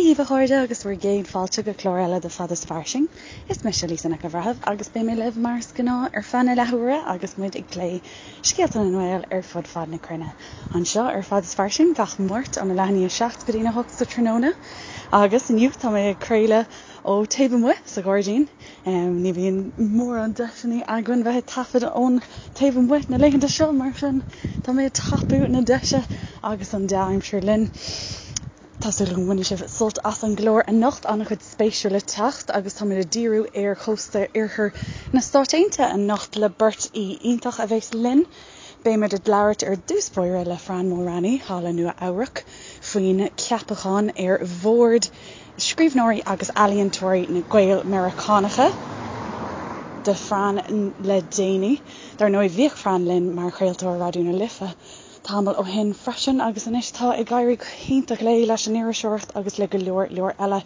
Dia dhaoibh a chairde agus bhur gcéad fáilte go clár eile de Fad is Fairsing. Is mise Lisa Nic an Bhreithimh agus beidh mé libh mar is gnáth ar feadh na leathuaire agus muid ag plé scéalta na nGael ar fud fad na cruinne. Anseo ar Fad is Fairsing gach Máirt óna leath i ndiaidh 7 go dtína 8 sa tráthnóna. Agus inniu tá mé ag craoladh ó taobh amuigh sa ghairdín. Ní bhíonn mórán deiseanna againn bheith ag taifead ón taobh amuigh na laethanta seo, mar sin tá mé ag tapú na deise agus an dea-aimsir linn. Tá súil agam go mbainfidh sibh sult as an gclár anocht, an-chuid spéisiúil le teacht agus táimid ag díriú ar chósta oirthear na Stáit Aontaithe anocht le beirt aoi iontach a bheas linn. Beimid ag labhairt ar dtús báire le Fran Mulraney thall i Nua Eabhrac faoin ceapachán ar bhord Scríbhneoirí agus Ealaíontóirí na Gael-Meiriceánacha do Fran le déanaí. Dar ndóigh, bhíodh Fran linn mar chraoltóir Raidió na Life tamall ó shin freisin agus anois tá ag éirí go hiontach léi leis an iriseoireacht agus le go leor leor eile,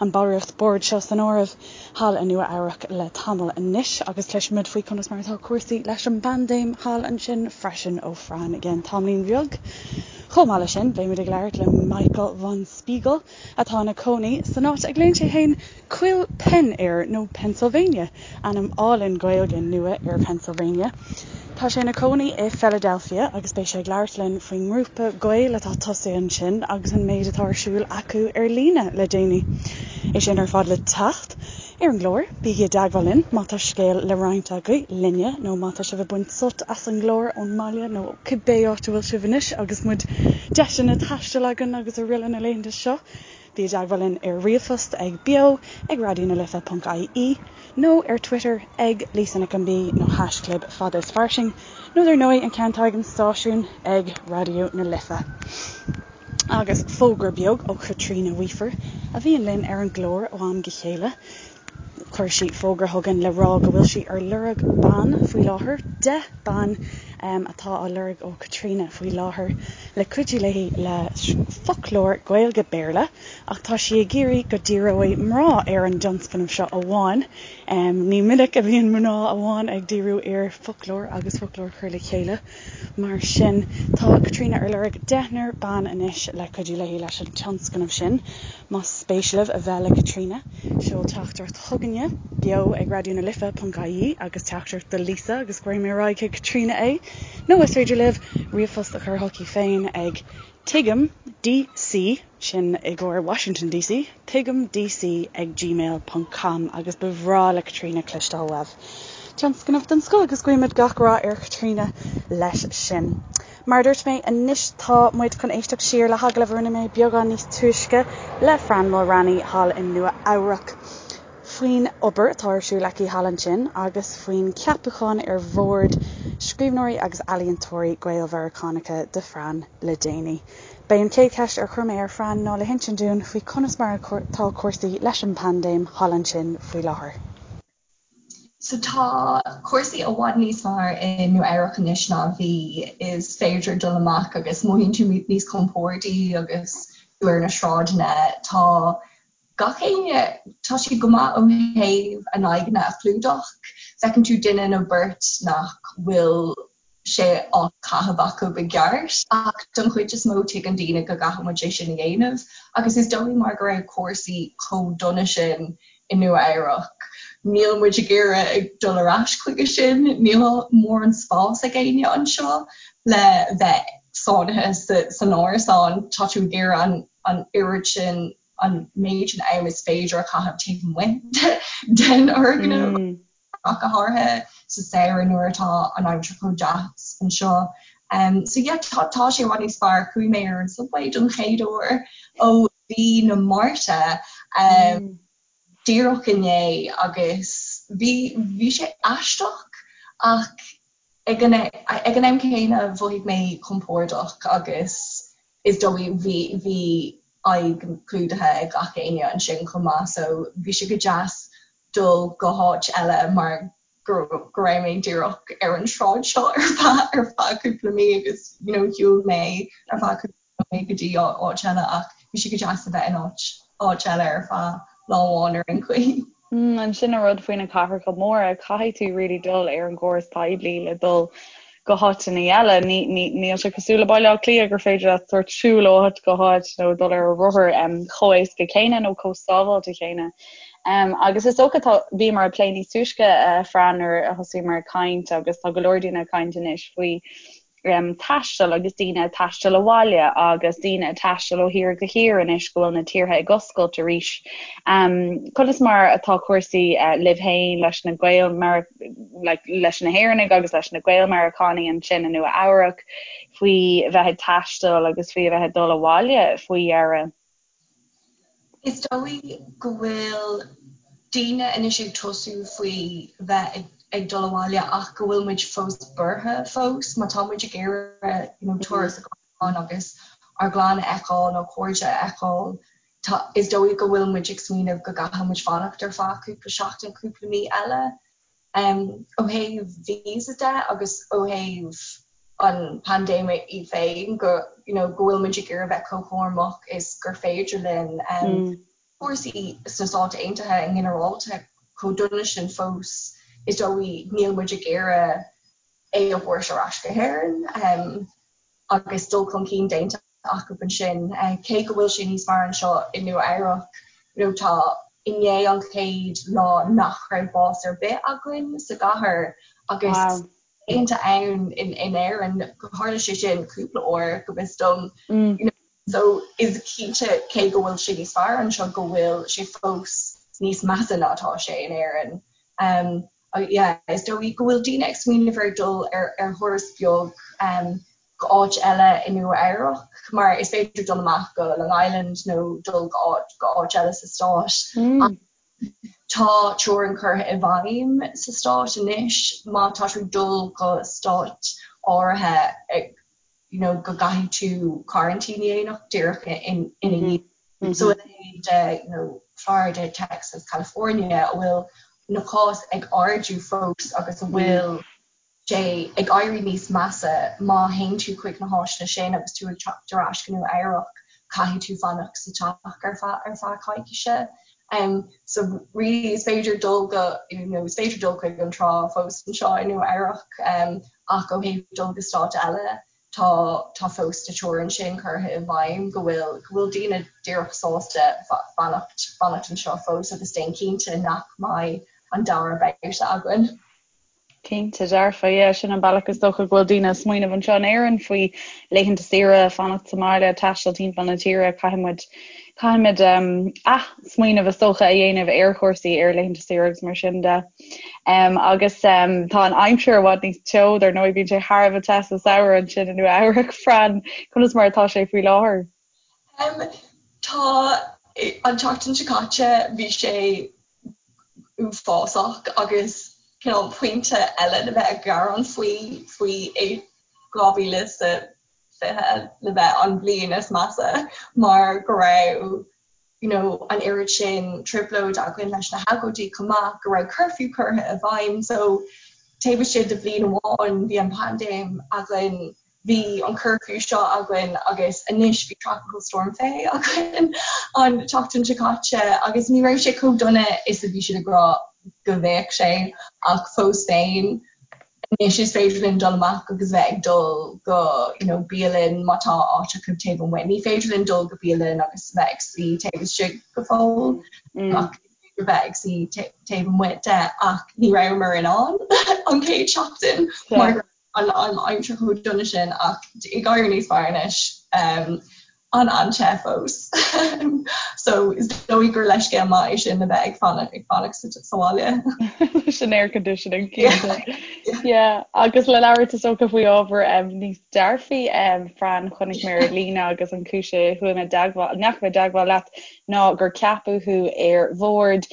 an ballraíocht boird seo san áireamh, thall i Nua Eabhrac le tamall anois agus cloisfimid faoi conas mar atá cúrsaí leis an bpaindéim thall ansin freisin ó Fran i gceann tamaillín bheag. Chomh maith leis sin, beimid ag labhairt le Michael von Spiegel, atá ina cónaí san áit a nglaonn sé féin Coill Penn air, nó Pennsylvania, ainm álainn Gaeilge nua ar Pennsylvania. Tá sé ina cónaí i Philadelphia agus beidh sé ag labhairt linn faoin ngrúpa Gael atá tosaithe ansin agus an méid atá ar siúl acu ar líne le déanaí. É sin ar fad le teacht ar an gclár. Bígí i dteagmháil linn má tá scéal le roinnt agaibh linne nó má tá sibh ag baint sult as an gclár ón mbaile nó cibé áit a bhfuil sibh anois agus muid deiseanna taistil againn agus araile na laethanta seo. Bí i dteagmháil linn ar ríomhphost ag beo ag raidionalife ponc ie nó ar Twitter ag Lisa Nic an B nó haischlib Fada is Fairsing nó dar ndóigh an ceann atá ag an stáisiún ag Raidió na Life. Agus fógra beag ó Chaitríona Weafer a bhíonn linn ar an gclár ó am go chéile. Chuir sí fógra chugainn le rá go bhfuil sí ar lorg ban faoi láthair, 10 ban atá á lorg ó Chaitríona faoi láthair le cuidiú léi le foclóir Gaeilge-Béarla ach tá sí ag iarraidh go díreoidh mná ar an dtionscnamh seo amháin. Ní minic a bhíonn mná amháin ag díriú ar foclóir agus foclóir a chur le chéile. Mar sin, tá Caitríona ar lorg deichniúr ban anois le cuidiú léi leis an tionscnamh sin. Más spéis libh a bheith le Caitríona, seol teachtaireacht chugainne, beo ag raidionalife ponc ie agus teachtaireacht do Lisa agus cuirfidh mé ar aghaidh chuig Caitríona é. Nó is féidir libh ríomhphost a chur chuici féin ag tuigim DC, sin i gcomhair Washington DC, tuigimdc ag gmail ponc com agus ba bhreá le Caitríona cloisteáil uaibh. Tionscnamh den scoth agus guímid gach rath ar Chaitríona leis sin. Mar a dúirt mé, anois tá muid chun éisteacht siar le hagallamh a rinne mé beagán níos túisce le Fran Mulraney thall i Nua Eabhrac faoin obair atá ar siúl aici thall ansin agus faoin cheapachán ar bhord Scríbhneoirí agus Ealaíontóirí Gael-Mheiriceánacha do Fran le déanaí. B'é an chéad cheist ar chuir mé ar Fran ná le hinsint dúinn faoi conas mar atá cúrsaí leis an bpaindéim thall ansin faoi láthair. So tá cúrsaí i bhfad níos fearr i Nua Eabhrac anois ná a bhí. Is féidir dul amach agus mothaíonn tú níos compórdaí agus tú ar na sráideanna. Tá gach éinne, tá siad go maith ó thaobh a n-aghaidheanna a chlúdach. Feiceann tú duine nó beirt nach bhfuil sé á chaitheamh acu i gceart ach don chuid is mó tuigeann daoine go gcaithfidh muid é sin a dhéanamh agus is dóigh mar go raibh cúrsaí chomh dona sin i Nua Eabhrac níl muid ag iarraidh dul ar ais chuige sin, níl mórán spás ag éinne anseo le bheith sáinnithe san árasán, tá tú ag iarraidh an an oiread sin an méid sin am is féidir a chaitheamh taobh amuigh den fhoirgneamh. ach go háirithe sa samhradh nuair atá an aimsir chomh deas anseo. Um, so yeah, tá, tá sé i bhfad níos fearr. Chuaigh mé ar an subway don chéad uair ó mhí na Márta um, mm. díreach inné agus bhí, bhí sé aisteach ach ag an, ag an am céanna mhothaigh mé compordach agus is dóigh bhí, bhí aghaidh clúdaithe ag gach éinne ansin chomh maith so bhí sé go deas dul go háit eile mar go go raibh mé díreach ar an sráid seo ar feadh ar feadh cúpla mí agus you know shiúil mé ar feadh cúpla mí go dtí áit eile ach bhí sé go deas a bheith in áit áit eile ar feadh lá amháin ar aon chaoi. Mm, an sin an rud faoi na cathracha móra, caithfidh tú really dul ar an gcóras poiblí le dul. go háiteanna eile. Níl sé cosúil le Baile Átha Cliath gur féidir leat sórt siúl ó áit go háit nó dul ar rothar chomh éasca céanna nó chomh sábháilte céanna. Agus is dócha tá, bhíomar ag plé níos túisce, a Fran, nuair a thosaíomar ag caint agus tá go leor daoine ag caint anois faoi taisteal agus daoine ag taisteal abhaile agus daoine ag taisteal ó thír go thír anois go bhfuil na tíortha ag oscailt arís. Conas mar atá cúrsaí libh féin leis na Gaeil like, leis na hÉireannaigh agus leis na Gael-Meiriceánaigh ansin i Nua Eabhrac faoi bheith ag taisteal agus faoi a bheith ag dul abhaile faoi dheireadh? Is dóigh go bhfuil daoine anois ag tosú faoi bheith ag dul abhaile ach go bhfuil muid fós buartha fós má tá muid ag iarraidh you know turas a ghabháil agus ár gclann a fheiceáil nó cairde a fheiceáil tá is dóigh go bhfuil muid ag smaoineamh go gcaithfidh muid fanacht ar feadh cúpla seachtain cúpla mí eile. Ó thaobh visa de agus ó thaobh an paindéime í féin go you know go bhfuil muid ag iarraidh bheith chomh cúramach is gur féidir linn. Cúrsaí sna Stáit Aontaithe i nginearálta chomh dona sin fós is dóigh níl muid ag iarraidh é a thabhairt ar ais go hÉirinn agus dul chun cinn déanta acu ansin. Cé go bhfuil sé níos fearr anseo i Nua Eabhrac, you know tá inné an chéad lá nach raibh bás ar bith againn sa gcathair agus laethanta ann in in Éirinn tharla sé sin cúpla uair go bhfios dom. You know so is cinnte cé go bhfuil sé níos fearr anseo go bhfuil sé fós níos measa ná atá sé in Éirinn. Um, yeah, is dóigh go bhfuil daoine ag smaoineamh ar dul ar ar thuras beag um, go áit eile i Nua Eabhrac mar is féidir dul amach go Long Island nó dul go áit go áit eile sa stát. Mm. Tá teorainn curtha i bhfeidhm sa stát anois má tá tú ag dul go stát áirithe you know, go gcaithfidh tú quarantine a dhéanamh díreach ina dhiaidh. Mm -hmm. So a leithéid de you know, Florida, Texas, California a bhfuil na cás ag ardú fós agus a bhfuil mm. sé ag éirí níos measa má théann tú chuig na háiteanna sin agus tú ag teacht ar ais go Nua Eabhrac, caithfidh tú fanacht sa teach ar feadh ar feadh coicíse. Um, so really is féidir dul go you know, is féidir dul chuig an trá fós anseo i Nua Eabhrac um, ach ó thaobh dul go stát eile tá tá fós na teorainn sin curtha i bhfeidhm go bhfuil go bhfuil daoine díreach sásta fanacht fanacht anseo fós agus déan cinnte nach mbeidh an dara babhta againn. Cinnte dearfa, yeah, sin an bealach is dócha go bhfuil daoine ag smaoineamh anseo in Éirinn faoi laethanta saoire, fanacht sa mbaile, taisteal timpeall na tíre, caithfidh muid, caithfimid um, ath-smaoineamh is dócha a dhéanamh ar chúrsaí, ar laethanta saoire agus mar sin de. Um, agus um, tá an aimsir i bhfad níos teo, dar ndóigh bíonn sé thar a bheith te sa samhradh ansin i Nua Eabhrac, Fran, conas mar atá sé faoi láthair? Um, tá an tseachtain seo caite bhí sé uafásach agus cineál pointe eile le bheith ag gearán faoi faoi 2020 le bheith an bhliain is measa mar go raibh you know an oiread sin trioblóid againn leis na hagóidí chomh maith go raibh curfew curtha i bhfeidhm so taobh istigh de bhliain amháin bhí an paindéim againn Bhí an curfew seo againn agus anois bhí Tropical Storm Fay againn an tseachtain seo caite agus ní raibh sé chomh dona is a bhí siad ag rá go bheadh sé ach fós féin anois is féidir linn dul amach agus bheith ag dul go you know bialann má tá áit acu taobh amuigh. Ní féidir linn dul go bialann agus bheith ag suí taobh istigh go fóill mm. ach bheith ag suí taobh amuigh de ach ní rabhamar in ann an chéad seachtain mar an aimsir chomh dona sin ach ag éirí níos fearr anois. An-an-te fós. So is dóigh gur leithscéal maith é sin le bheith ag fanacht ag fanacht sa bhaile. Leis an air conditioning cinnte. Yeah, agus le labhairt is dócha faoi ábhar níos dearfaí, Fran, chonaic mé ar líne agus an chúis a chuaigh mé i dteagmháil, ndeachaigh mé i dteagmháil leat ná gur ceapadh thú ar bhord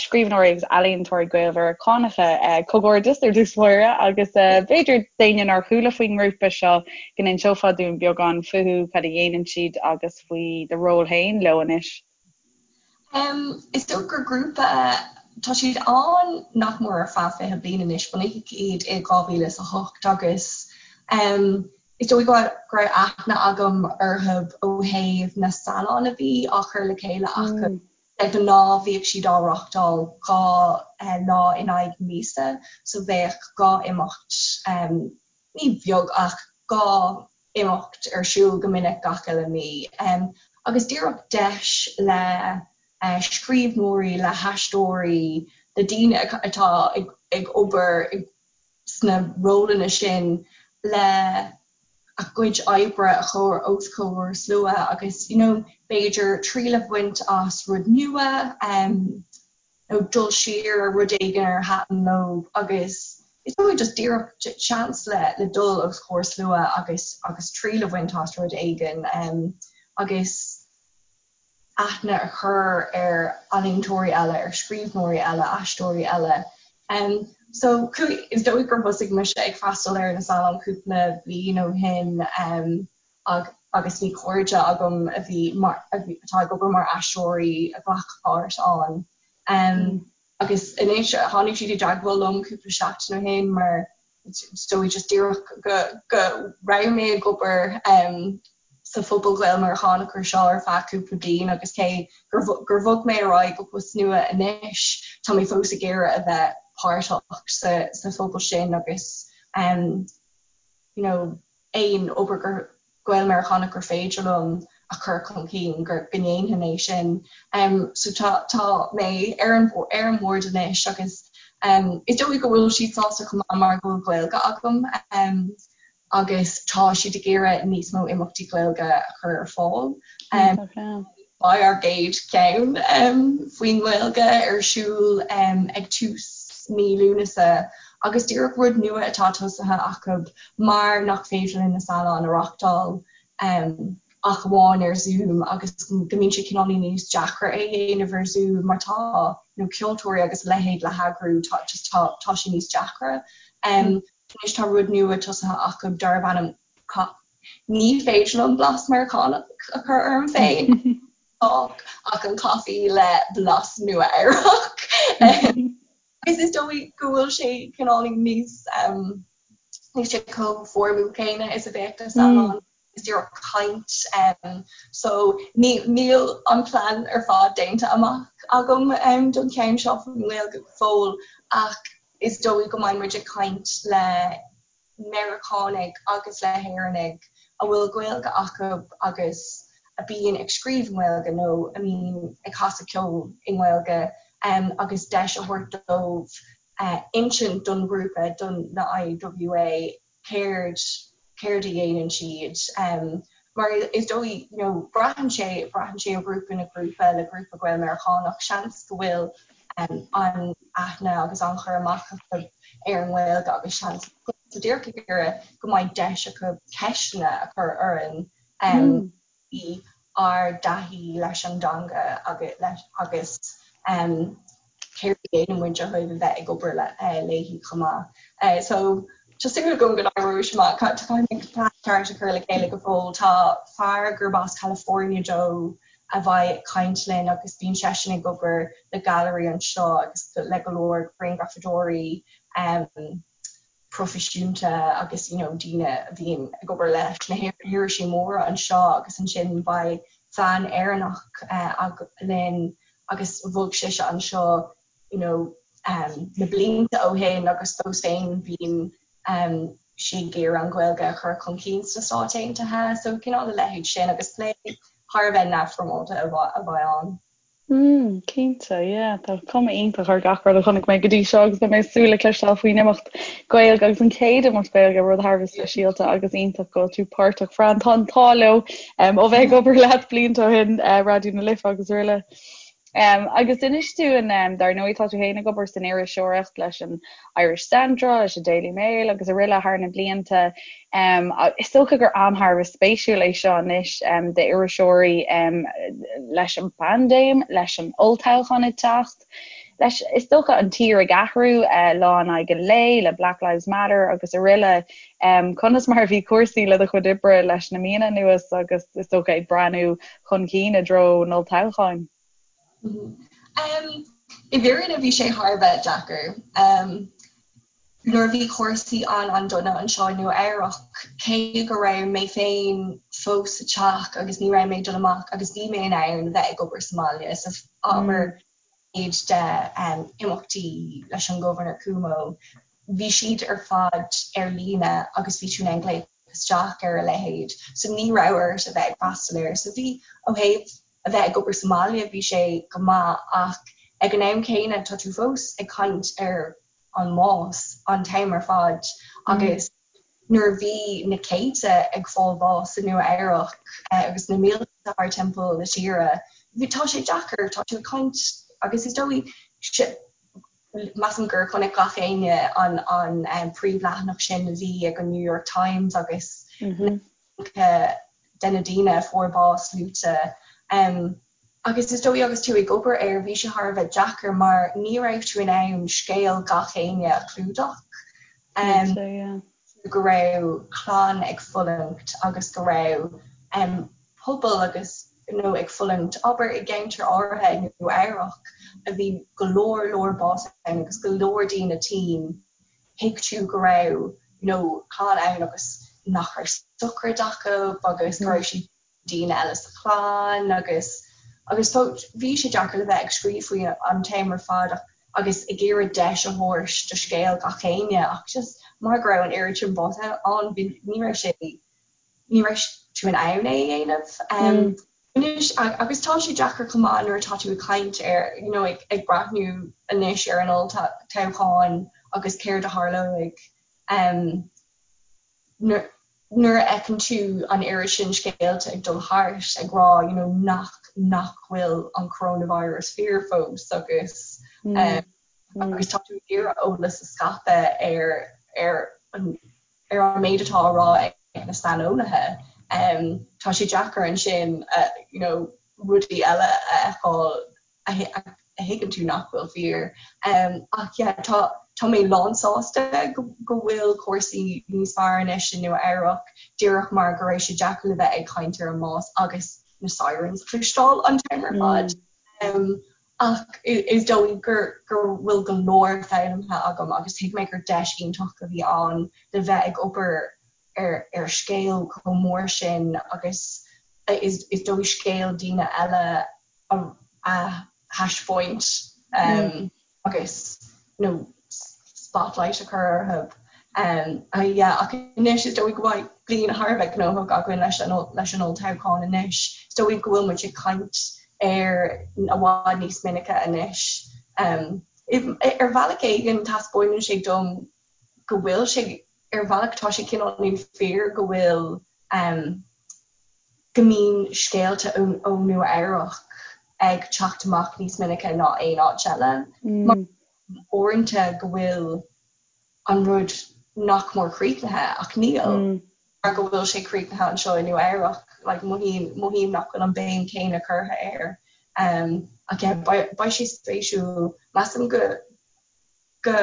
Scríbhneoirí agus Ealaíontóirí Gael-Mheiriceánacha. Comhghairdeas ar dtús báire agus b'fhéidir d'éinne nár chuala faoin ngrúpa seo go n-inseofá dúinn beagán fúthu, cad a dhéanann siad agus faoi do ról féin leo anois. Is dócha gur grúpa, tá siad ann nach mór ar feadh 20 bliain anois, bunaíodh iad i 2008 agus Is dóigh go raibh aithne agam orthu ó thaobh na scannáin a bhí á chur le chéile acu. De ghnáth bhíodh siad á reáchtáil 2 lá in aghaidh míosa so bheadh 2 imeacht. ní beag ach 2 imeacht ar siúl go minic gach uile mí agus díreach deis le scríbhneoirí, le haisteoirí, le daoine atá ag obair sna rólanna sin le a gcuid oibre a chur os comhair slua agus you know b'fhéidir triail a bhaint as rud nua nó dul siar ar rud éigin ar thaitin leo agus is dóigh just díreach seans le le dul os comhair slua agus agus triail a bhaint as rud éigin agus aithne a chur ar ealaíontóirí eile, ar scríbhneoirí eile, aisteoirí eile. So is dóigh gur thosaigh mise ag freastal ar na Salon cúpla bliain ó shin agus bhí cairde agam a bhí mar atá ag obair mar aisteoirí a ghlac páirt ann. Agus anois tháinig siad i dteagmháil liom cúpla seachtain ó shin mar is dóigh just díreach go go raibh mé ag obair sa phobal Gael-Meiriceánach anseo ar feadh cúpla bliain agus cé gur gur bhog mé ar aghaidh go post nua anois tá mé fós ag iarraidh a bheith páirteach sa sa phobal sin agus you know aon obair gur Gael-Meiriceánach gur féidir liom a chur chun cinn go go ndéanfainn é sin. So tá tá mé ar an ar an mbord anois agus is dóigh go bhfuil siad sásta chomh maith mar go bhfuil Gaeilge agam agus tá siad ag iarraidh níos mó imeachtaí Gaeilge a chur ar fáil. Beidh ár gcéad cheann faoin nGaeilge ar siúl ag tús mí Lúnasa agus díreach rud nua atá tosaithe acu mar nach féidir linn na Salon a reáchtáil ach amháin ar Zoom agus go mbíonn sé cineáilín níos deacra é a dhéanamh ar Zoom mar tá you know ceoltóirí agus a leithéid le heagrú tá just tá tá sé níos deacra. Anois tá rud nua tosaithe acu darb ainm Ní féidir liom blas Meiriceánach a chur orm féin ach an caife le blas Nua-Eabhrac. Agus is dóigh go bhfuil sé cineáilín níos níl sé chomh foirmiúil céanna is a bheadh na Salon is díreach caint. So níl an plean ar fad déanta amach agam don cheann seo faoin nGaeilge go fóill ach is dóigh go mbeidh muid ag caint le Meiriceánaigh agus le hÉireannaigh a bhfuil Gaeilge acu agus a bíonn ag scríobh i nGaeilge nó a mbíonn ag casadh ceoil i nGaeilge agus deis a thabhairt dóibh insint don ghrúpa, don na IWA, céard céard a dhéanann siad. Mar is dóigh, you know, braitheann sé, braitheann sé ó ghrúpa go grúpa, le grúpa Gael-Meiriceánach, seans go bhfuil an-aithne agus an-chur amach acu ar an nGaeilge agus seans so díreach ag iarraidh go mbeidh deis acu ceisteanna a chur orainn faoi ár dtaithí leis an dteanga agus céard a dhéanann muid ó thaobh a bheith ag obair léi chomh maith. So tá súil agam go n-éireoidh sé amach. Caithfidh mé plean ceart a chur le chéile go fóill. Tá fear gurb as California dó a bheidh ag caint linn agus bíonn seisean ag obair le gailearaí anseo agus le go leor grianghrafadóirí proifisiúnta agus you know daoine a bhíonn ag obair leis na hirisí móra anseo agus ansin beidh bean Éireannach linn agus bhog sise anseo you know na blianta ó shin agus fós féin bíonn sí ag iarraidh an Ghaeilge a chur chun cinn sna Stáit Aontaithe so cineál a leithéid sin agus plé thar a bheith neamhfhoirmeálta a bheidh ann. Mm, cinnte, yeah. Tá cuma iontach ar gach rud a chonaic mé go dtí seo agus beidh mé ag súil le cloisteáil faoin imeacht Gaeilge agus an chéad imeacht Gaeilge, rud thar a bheith speisialta agus iontach go bhfuil tú páirteach. Fran, tá an t-ádh leo ó bheith ag obair leat blianta ó shin, Raidió na Life agus araile. Agus inis dúinn, dar ndóigh tá tú féin ag obair san iriseoireacht leis an Irish Central, leis an Daily Mail agus araile thar na blianta. Is dócha gur am thar a bheith spéisiúil é seo anois d'iriseoirí leis an bpaindéim, leis an olltoghchán ag teacht, leis, is dócha, an tír ag athrú lá in aghaidh an lae le Black Lives Matter agus araile. Conas mar a bhí cúrsaí le do chuid oibre leis na míonna anuas agus is dócha ag breathnú chun cinn i dtreo an olltoghcháin? I bhfírinne bhí sé thar a bheith deacair. Nuair a bhí cúrsaí an-an-dona anseo i Nua Eabhrac, cé go raibh mé féin fós sa teach agus ní raibh mé ag dul amach agus bhí mé in ann bheith ag obair sa mbaile, so abair méid de imeachtaí leis an Governor Cuomo. Bhí siad ar fad ar líne agus bhí tú in ann glaoch isteach ar a leithéid so ní raibh ort a bheith ag freastal air. So bhí, ó thaobh a bheith ag obair sa mbaile bhí sé go maith ach ag an am céanna tá tú fós ag caint ar an mbás an t-am ar fad agus nuair a bhí na céadta ag fáil bás i Nua Eabhrac agus na mílte thar timpeall na tíre, bhí, tá sé deacair, tá tú ag caint agus is dóigh, measaim gur chonaic gach éinne an an príomhleathanach sin a bhí ag an New York Times agus na de na daoine a fuair bás luaite. Agus is dóigh agus tú ag obair air, bhí sé thar a bheith deacair mar ní raibh tú in ann scéal gach éinne a chlúdach. Go raibh clann ag fulaingt agus go raibh pobal agus nó ag fulaingt, abair i gceantar áirithe i Nua Eabhrac a bhí go leor leor bás ann agus go leor daoine tinn, thuig tú go raibh you know clann ann agus nach raibh sochraid acu agus go raibh siad daoine eile sa chlann agus agus so bhí sé deacair le bheith ag scríobh faoi an t-am ar fad ach agus ag iarraidh deis a thabhairt do scéal gach éinne ach just mar go raibh an oiread sin bás ann bhí ní raibh sé ní raibh tú in ann é a dhéanamh. Anois, agus tá sé deacair chomh maith nuair atá tú ag caint ar, you know, ag, ag breathnú anois ar an olltoghchán agus céard a tharlóidh um, nuair, nuair a fheiceann tú an oiread sin scéalta ag dul thart ag rá, you know, nach, nach bhfuil an coronavirus fíor fós agus mm. um, agus tá tú ag iarraidh eolas a scaipeadh ar, ar an ar an méid atá á rá ag na saineolaithe, tá sé deacair ansin you know rudaí eile a fheiceáil a thuigeann tú nach bhfuil fíor. Ach yeah, tá tá mé lánsásta go go bhfuil cúrsaí níos fearr anois i Nua Eabhrac, díreach mar go raibh sé deacair le bheith ag caint ar an mbás agus na sirens a chloisteáil an t-am ar fad. Ach is dóigh gur go bhfuil go leor foghlamtha agam agus thuig mé gur deis iontach a bhí ann le bheith ag obair ar ar scéal chomh mór sin agus is is dóigh scéal daoine eile a a thaispeáint agus you know spotlight a chur orthu. Yeah ach anois is dóigh go mbeidh bliain thar a bheith gnóthach againn leis an leis an olltoghchán anois. Is dóigh go bhfuil muid ag caint air i bhfad níos minice anois. Ar bhealach éigin taispeánann sé dom go bhfuil sé, ar bhealach tá sé cineál fíor go bhfuil go mbíonn scéalta ó Nua Eabhrac ag teacht amach níos minice ná aon áit eile. Mar uaireanta go bhfuil an rud nach mór críochnaithe ach níl mar go bhfuil sé críochnaithe anseo i Nua Eabhrac like mothaím mothaím nach bhfuil an béim céanna curtha air um ach yeah beidh beidh sé spéisiúil measaim go go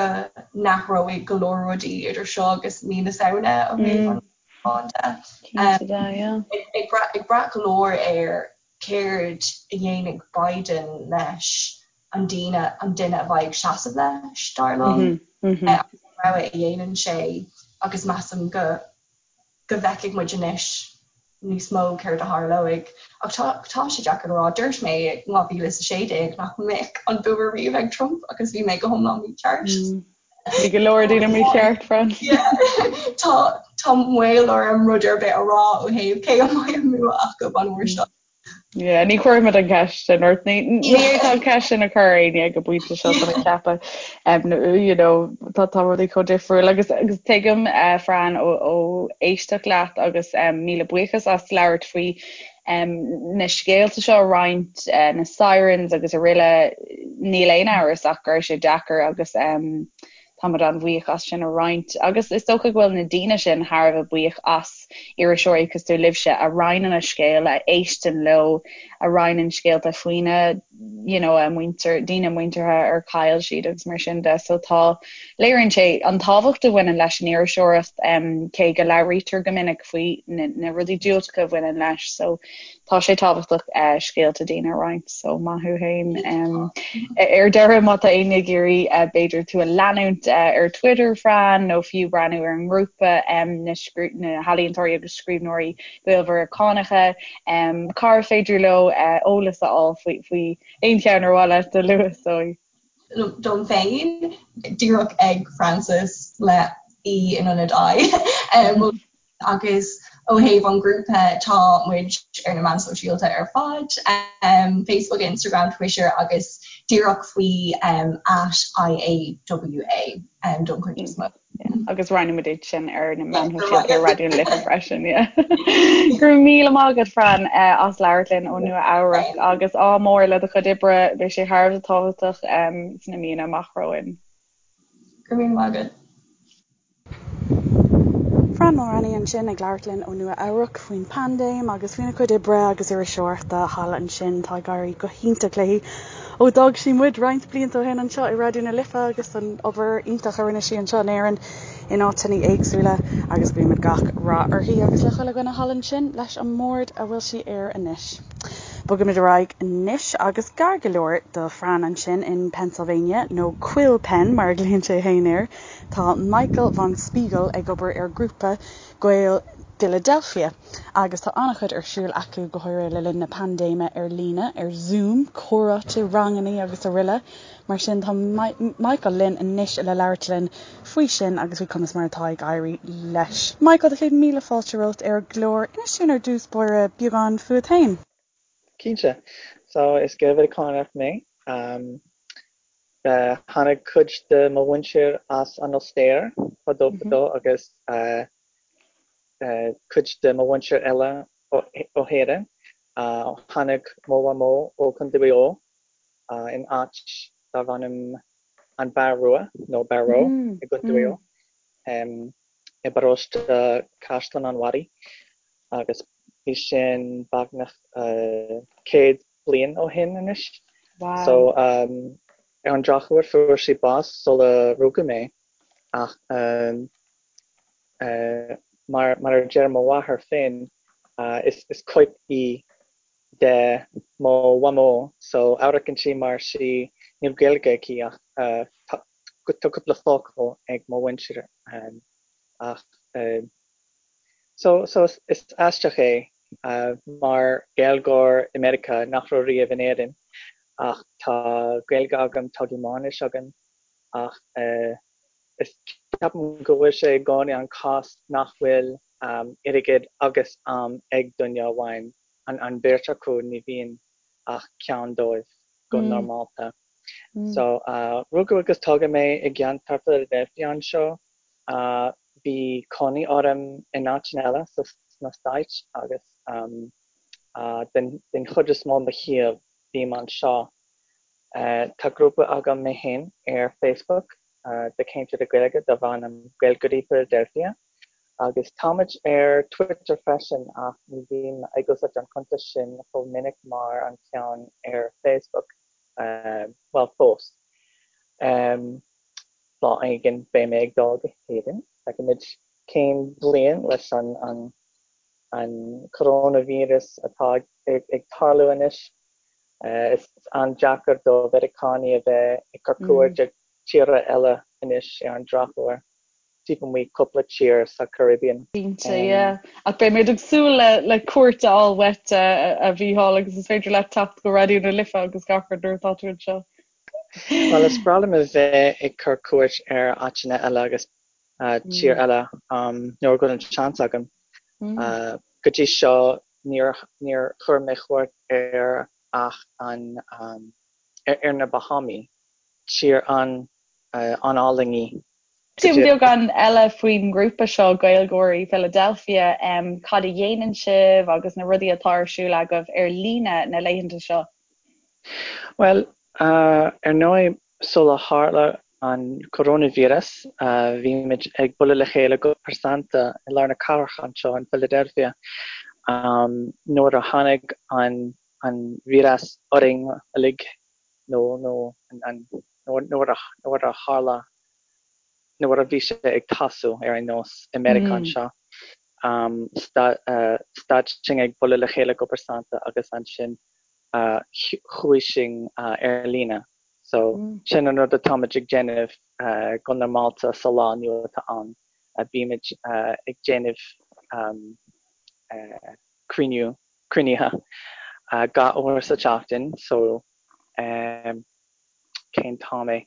n-athróidh go leor rudaí idir seo agus mí na Samhna ó thaobh an toghcháin de. Cinnte de, yeah. Ag brath ag brath go leor ar céard a dhéanfaidh Biden leis an duine an duine a bheidh ag seasamh leis, dar liom, agus an rogha a dhéanann sé agus measaim go go bhfeicfidh muid anois níos mó céard a tharlóidh. Ach tá tá sé deacair le rá. Dúirt mé i 2016 nach mbeadh an bua riamh ag Trump agus bhí mé go hiomlán mícheart. Bhí go leor daoine mícheart, Fran. Tá tá maol orm rud ar bith a rá ó thaobh cé a mbeidh an bua acu an uair seo. Yeah, ní chuirfimid an ceist sin ort. Ní ní fhéadfá an ceist sin a chur ar éinne ag an bpointe seo tá mé ag ceapadh. Um, you know, tá tá rudaí chomh difriúil agus agus tuigim uh, Fran ó, ó éisteacht leat agus um, míle buíochas as labhairt faoi na scéalta seo a roinnt, na sirens agus araile, níl aon amhras ach go raibh sé deacair agus táimid an-bhuíoch as sin a roinnt. Agus is dócha go bhfuil na daoine sin thar a bheith buíoch as iriseoirí cosúil libhse a roinneann a scéal, a éisteann leo, a roinneann scéalta faoina you know, a muintir, daoine muinteartha ar chaill siad agus mar sin de. So tá, léiríonn sé an tábhacht a bhaineann leis an iriseoireacht, cé go labhraítear go minic faoi na, na rudaí diúltacha a bhaineann leis. So tá sé tábhachtach uh, scéalta daoine a roinnt. So maith thú féin. Um, ar deireadh má tá éinne ag iarraidh uh, b'fhéidir tú a leanúint uh, ar Twitter Fran nó fiú breathnú ar an ngrúpa um, na, na healaíontóirí agus scríbhneoirí Gael-Mheiriceánacha, Cár féidir leo eolas a fháil faoi aon cheann ar mhaith leat a lua, is dóigh? dom féin díreach ag Frances le E in ionad I. Agus ó thaobh an ghrúpa tá muid ar na meáin sóisialta ar fad, Facebook, Instagram, Twitter agus díreach faoi @IAWA don chuid is mó. Agus roinnfidh muid iad sin ar na meáin shóisialta ar Raidió na Life freisin. Go raibh míle maith agat Fran as labhairt linn ó Nua Eabhrac agus ádh mór le do chuid oibre, beidh sé thar a bheith tábhachtach sna míonna amach romhainn. Go raibh míle maith agat. Fran Mulraney ansin ag labhairt linn ó Nua Eabhrac faoin bpaindéim agus faoina cuid oibre agus iriseoireachta thall ansin. Tá ag éirí go hiontach léi ó d'fhág sí muid roinnt blianta ó shin anseo i Raidió na Life agus an obair iontach a rinne sí anseo in Éirinn in áiteanna éagsúla agus guímid gach rath uirthi agus le chuile dhuine thall ansin leis an mbord a bhfuil sí air anois. Bogaimid ar aghaidh anois agus gar go leor do Fran ansin in Pennsylvania, nó Quill Penn mar a ghlaonn sé féin air, Tá Michael von Spiegel ag obair ar ghrúpa Gael Philadelphia agus tá an-chuid ar siúl acu, go háirithe le linn na paindéime, ar líne, ar Zoom, comhráite, rangannaí agus aroile. Mar sin tá Michael linn anois le labhairt linn faoi sin agus faoi conas mar atá ag éirí leis. Michael, tá 100,000 fáilte romhat ar an gclár. Inis dúinn ar dtús báire beagán fúat féin. Cinnte. So, is Gael-Mheiriceánach mé. Tháinig cuid de mo mhuintir as an Ostair fadó fadó agus cuid de mo mhuintir eile ó hÉirinn. Tháinig mo mhamó ó Chontae Mhaigh Eo in áit darbh ainm An Barr Rua nó Barrow i gContae Mhaigh Eo i bparóiste Caisleán an Bharraigh agus bhí sin beagnach 100 bliain ó shin anois. Wow. So ar an drochuair fuair sí bás sula rugadh mé ach mar mar a deir mo mháthair féin is is cóip í de mo mhamó so amharcann sí mar sí níl Gaeilge aici ach tá cúpla focal ag mo mhuintir ach So, so is aisteach é mar Gaeilgeoir i Meiriceá nach raibh riamh in Éirinn ach tá Gaeilge agam, tá Gearmáinis agam ach is ceapaim go bhfuil sé i gcónaí an cás nach bhfuil airgead agus am ag duine amháin, an bheirt acu, ní bhíonn ach ceann dóibh go normálta. So, rugadh agus tógadh mé i gceantar Philadelphia anseo. Bhí cónaí orm in áiteanna eile sna Stáit agus den chuid is mó mo shaol bím anseo. Tá grúpa agam mé féin ar Facebook do cainteoirí Gaeilge darb ainm Gaeilgeoirí Philadelphia agus táimid ar Twitter freisin ach ní bhím ag úsáid an cuntas sin chomh minic mar an ceann ar Facebook, bhuel fós. Lá éigin beidh mé ag dul go hÉirinn. Feicfimid cén bhliain leis an an coróinvíreas atá ag tarlú anois. Is an-deacair do Mheiriceánaigh a bheith ag cur cuairt ar tíortha eile anois ar an drochuair, taobh amuigh cúpla tír sa Caribbean. Cinnte, yeah. Ach beidh muid ag súil le cuairt a fháil uait, a Mhícheáil, agus is féidir leat teacht go Raidió na Life agus gach rud nuair atá tú anseo. Bhuel, is breá liom a bheith ag cur cuairt ar áiteanna eile agus tír eile nuair a bhfuil an seans agam. Go dtí seo níor níor chuir mé cuairt ar ach an ar na Bahámaí, tír an an-álainn í. Dúinn beagán eile faoin ngrúpa seo, Gaeilgeoirí Philadelphia, cad a dhéanann sibh agus na rudaí atá ar siúl agaibh ar líne na laethanta seo? Bhuel, ar ndóigh, sula tharla an coróinvíreas, bhí muid ag bualadh le chéile go pearsanta i lár na cathrach anseo in Philadelphia. Nuair a tháinig an an víreas orainn uilig, nó nó nuair a nuair a tharla nuair a bhí sé ag tosú ar aon nós i Meiriceá anseo, stad sinn ag bualadh le chéile go pearsanta agus ansin chuaigh sinn ar líne. So sin an rud atáimid ag déanamh go normálta sa lá inniu atá ann. Bímid ag déanamh cruinniú, cruinnithe gach uair sa tseachtain so. cén t-am é,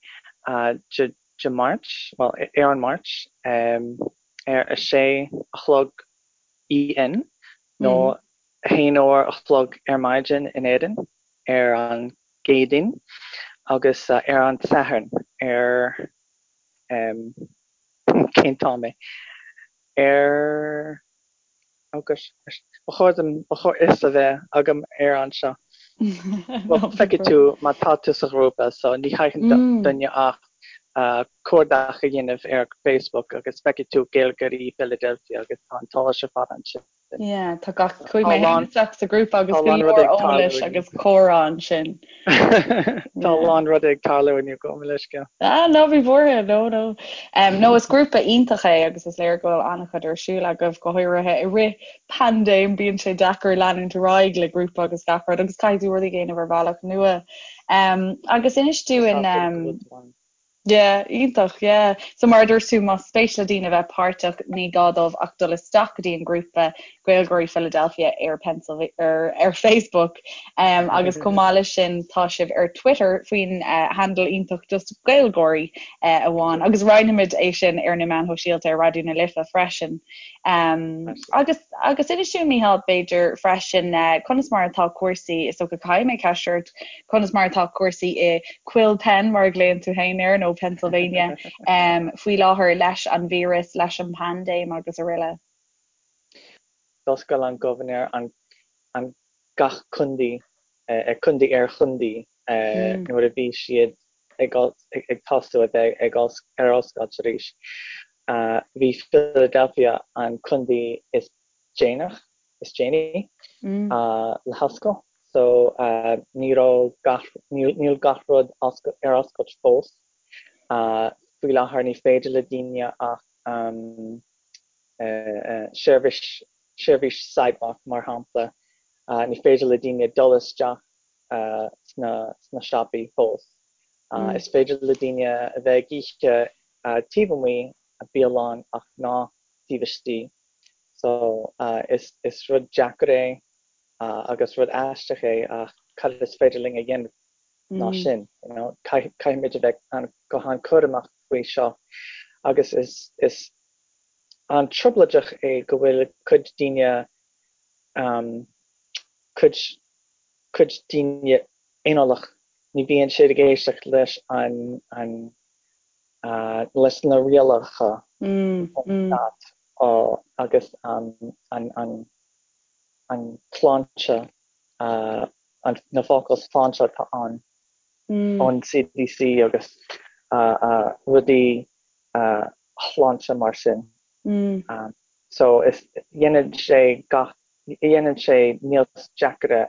Dé Máirt, bhuel, ar an Máirt, ar a sé a chlog EN, nó a haon uair a chlog ar maidin in Éirinn ar an gCéadaoin, agus ar an Satharn ar, cén t-am é? Ar. Oh gosh, ba chóir dom, ba chóir fhios a bheith agam ar anseo. Well, feicfidh tú má tá tú sa ghrúpa, so ní chaithfidh duine ach cuardach a dhéanamh ar Facebook agus feicfidh tú Gaeilgeoirí Philadelphia agus tá an t-eolas ar fad ansin. Yeah, tá gach, chuaigh mé féin isteach sa ghrúpa agus go leor eolais agus comhrá ansin. Tá a lán rudaí ag tarlú inniu, gabh mo leithscéal. Ah, ná bí buartha, no, no. No, is grúpa iontach é agus is léir go bhfuil an-chuid ar siúl agaibh, go háirithe i rith paindéim, bíonn sé deacair leanúint ar aghaidh le grúpa agus gach rud agus caithfidh tú rudaí a dhéanamh ar bhealach nua. Agus inis dúinn, Yeah, iontach, yeah. So mar a dúirt tú, más spéis le daoine bheith páirteach, ní gá dóibh ach dul isteach go dtí an grúpa Gaeilgeoirí Philadelphia ar Pennsylvania, ar, ar Facebook. Um, agus chomh maith leis sin, tá sibh ar Twitter faoin uh, handle iontach just Gaeilgeoirí uh, amháin. Agus roinnfimid é sin ar na meáin shóisialta ar Raidió na Life freisin. Um, agus, agus inis dúinn, Mícheál, b'fhéidir freisin, uh, conas mar atá cúrsaí, is dócha caithfidh mé ceist ort, Conas mar atá cúrsaí i Quill Pen, mar a ghlaonn tú féin air, nó Pennsylvania, faoi láthair leis an víreas, leis an bpaindéim agus araile? D'oscail an gobharnóir an an gach contae, contae ar chontae nuair a bhí siad ag ag tosú a bheith ag ar oscailt arís. Bhí Philadelphia an contae is déanach, is déanaí le hoscailt so ní raibh gach, níl gach rud ar oscailt fós. Faoi láthair ní féidir le daoine ach seirbhís, seirbhís sidewalk mar shampla, ní féidir le daoine dul isteach sna, sna siopaí fós. Is féidir le daoine a bheith ag ithe taobh amuigh bialann ach ná taobh istigh. So, is is rud deacair é agus rud aisteach é ach cad is féidir linn a dhéanamh ná sin, you know, caithfimid a bheith an, go han-chúramach faoi seo agus is is an-trioblóideach é go bhfuil cuid daoine cuid cuid daoine aineolach, ní bhíonn siad ag éisteacht leis an an leis na rialacha ón stát agus an tsláinte, na focail sláinte atá ann ón CDC agus rudaí shláinte mar sin. So is dhéanann sé gach, dhéanann sé níos deacaire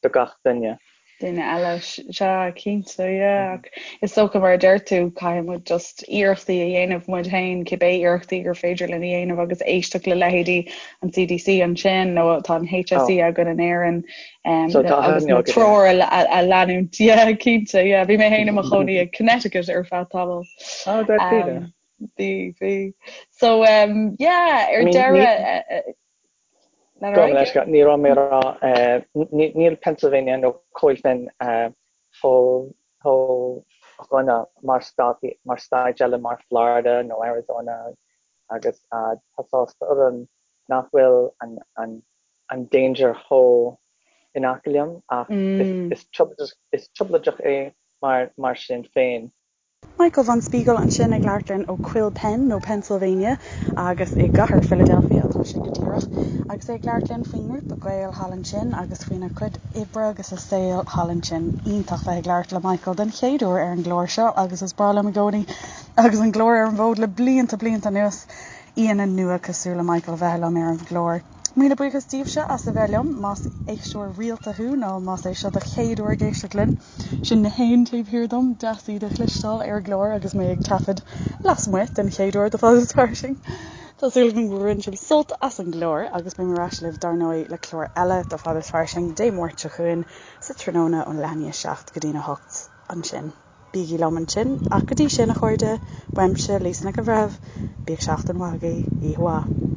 do gach duine. duine eile. Sea, cinnte, yeah. Ach is dócha, mar a deir tú, caithfidh muid just iarrachtaí a dhéanamh muid féin, cibé iarrachtaí gur féidir linn a dhéanamh agus éisteacht le leithéidí an CDC ansin nó tá an HSE oh. againn in Éirinn um, so, agus na treoir a, a leanúint. Yeah, cinnte, yeah. Bhí mé féin i mo chónaí i Connecticut ar feadh tamaill. Oh, um, bhí, bhí. So, um, yeah, ar deireadh... Ní raibh mé rá níl Pennsylvania nó Coill Finn chomh dhona mar stáit mar stáit eile mar Florida nó Arizona agus tá sásta orm nach bhfuil an an an danger chomh in aice liom ach is is trioblóideach é mar mar sin féin. Michael von Spiegel ansin ag labhairt linn ó Quill Penn nó Pennsylvania agus i gcathair Philadelphia atá sé go díreach agus é ag labhairt linn faoin ngrúpa Gael thall ansin agus faoina chuid oibre agus a saol thall ansin. Iontach bheith ag labhairt le Michael den chéad uair ar an gclár seo agus is breá liom i gcónaí agus an clár ar an bhfód le blianta blianta anuas aíonna nua cosúil le Michael a bheith liom ar an gclár. Míle buíochas daoibhse as a bheith liom, más éisteoir rialta thú nó más é seo do chéad uair ag éisteacht linn. Sin na héin taobh thiar dom, deas iad a chloisteáil ar an gclár agus mé ag taifead lasmuigh den chéad uair do Fada is Fairsing. Tá súil agam gur bhain sibh sult as an gclár agus beidh mé ar ais libh dar ndóigh le clár eile do Fada is Fairsing Dé Máirt seo chugainn sa tráthnóna ón leath i ndiaidh 7 go dtí'n 8 ansin. Bígí liom ansin, ach go dtí sin, a chairde, uaimse, Lisa Nic an Bhreithimh, bíodh seachtain mhaith agaibh, oíche mhaith.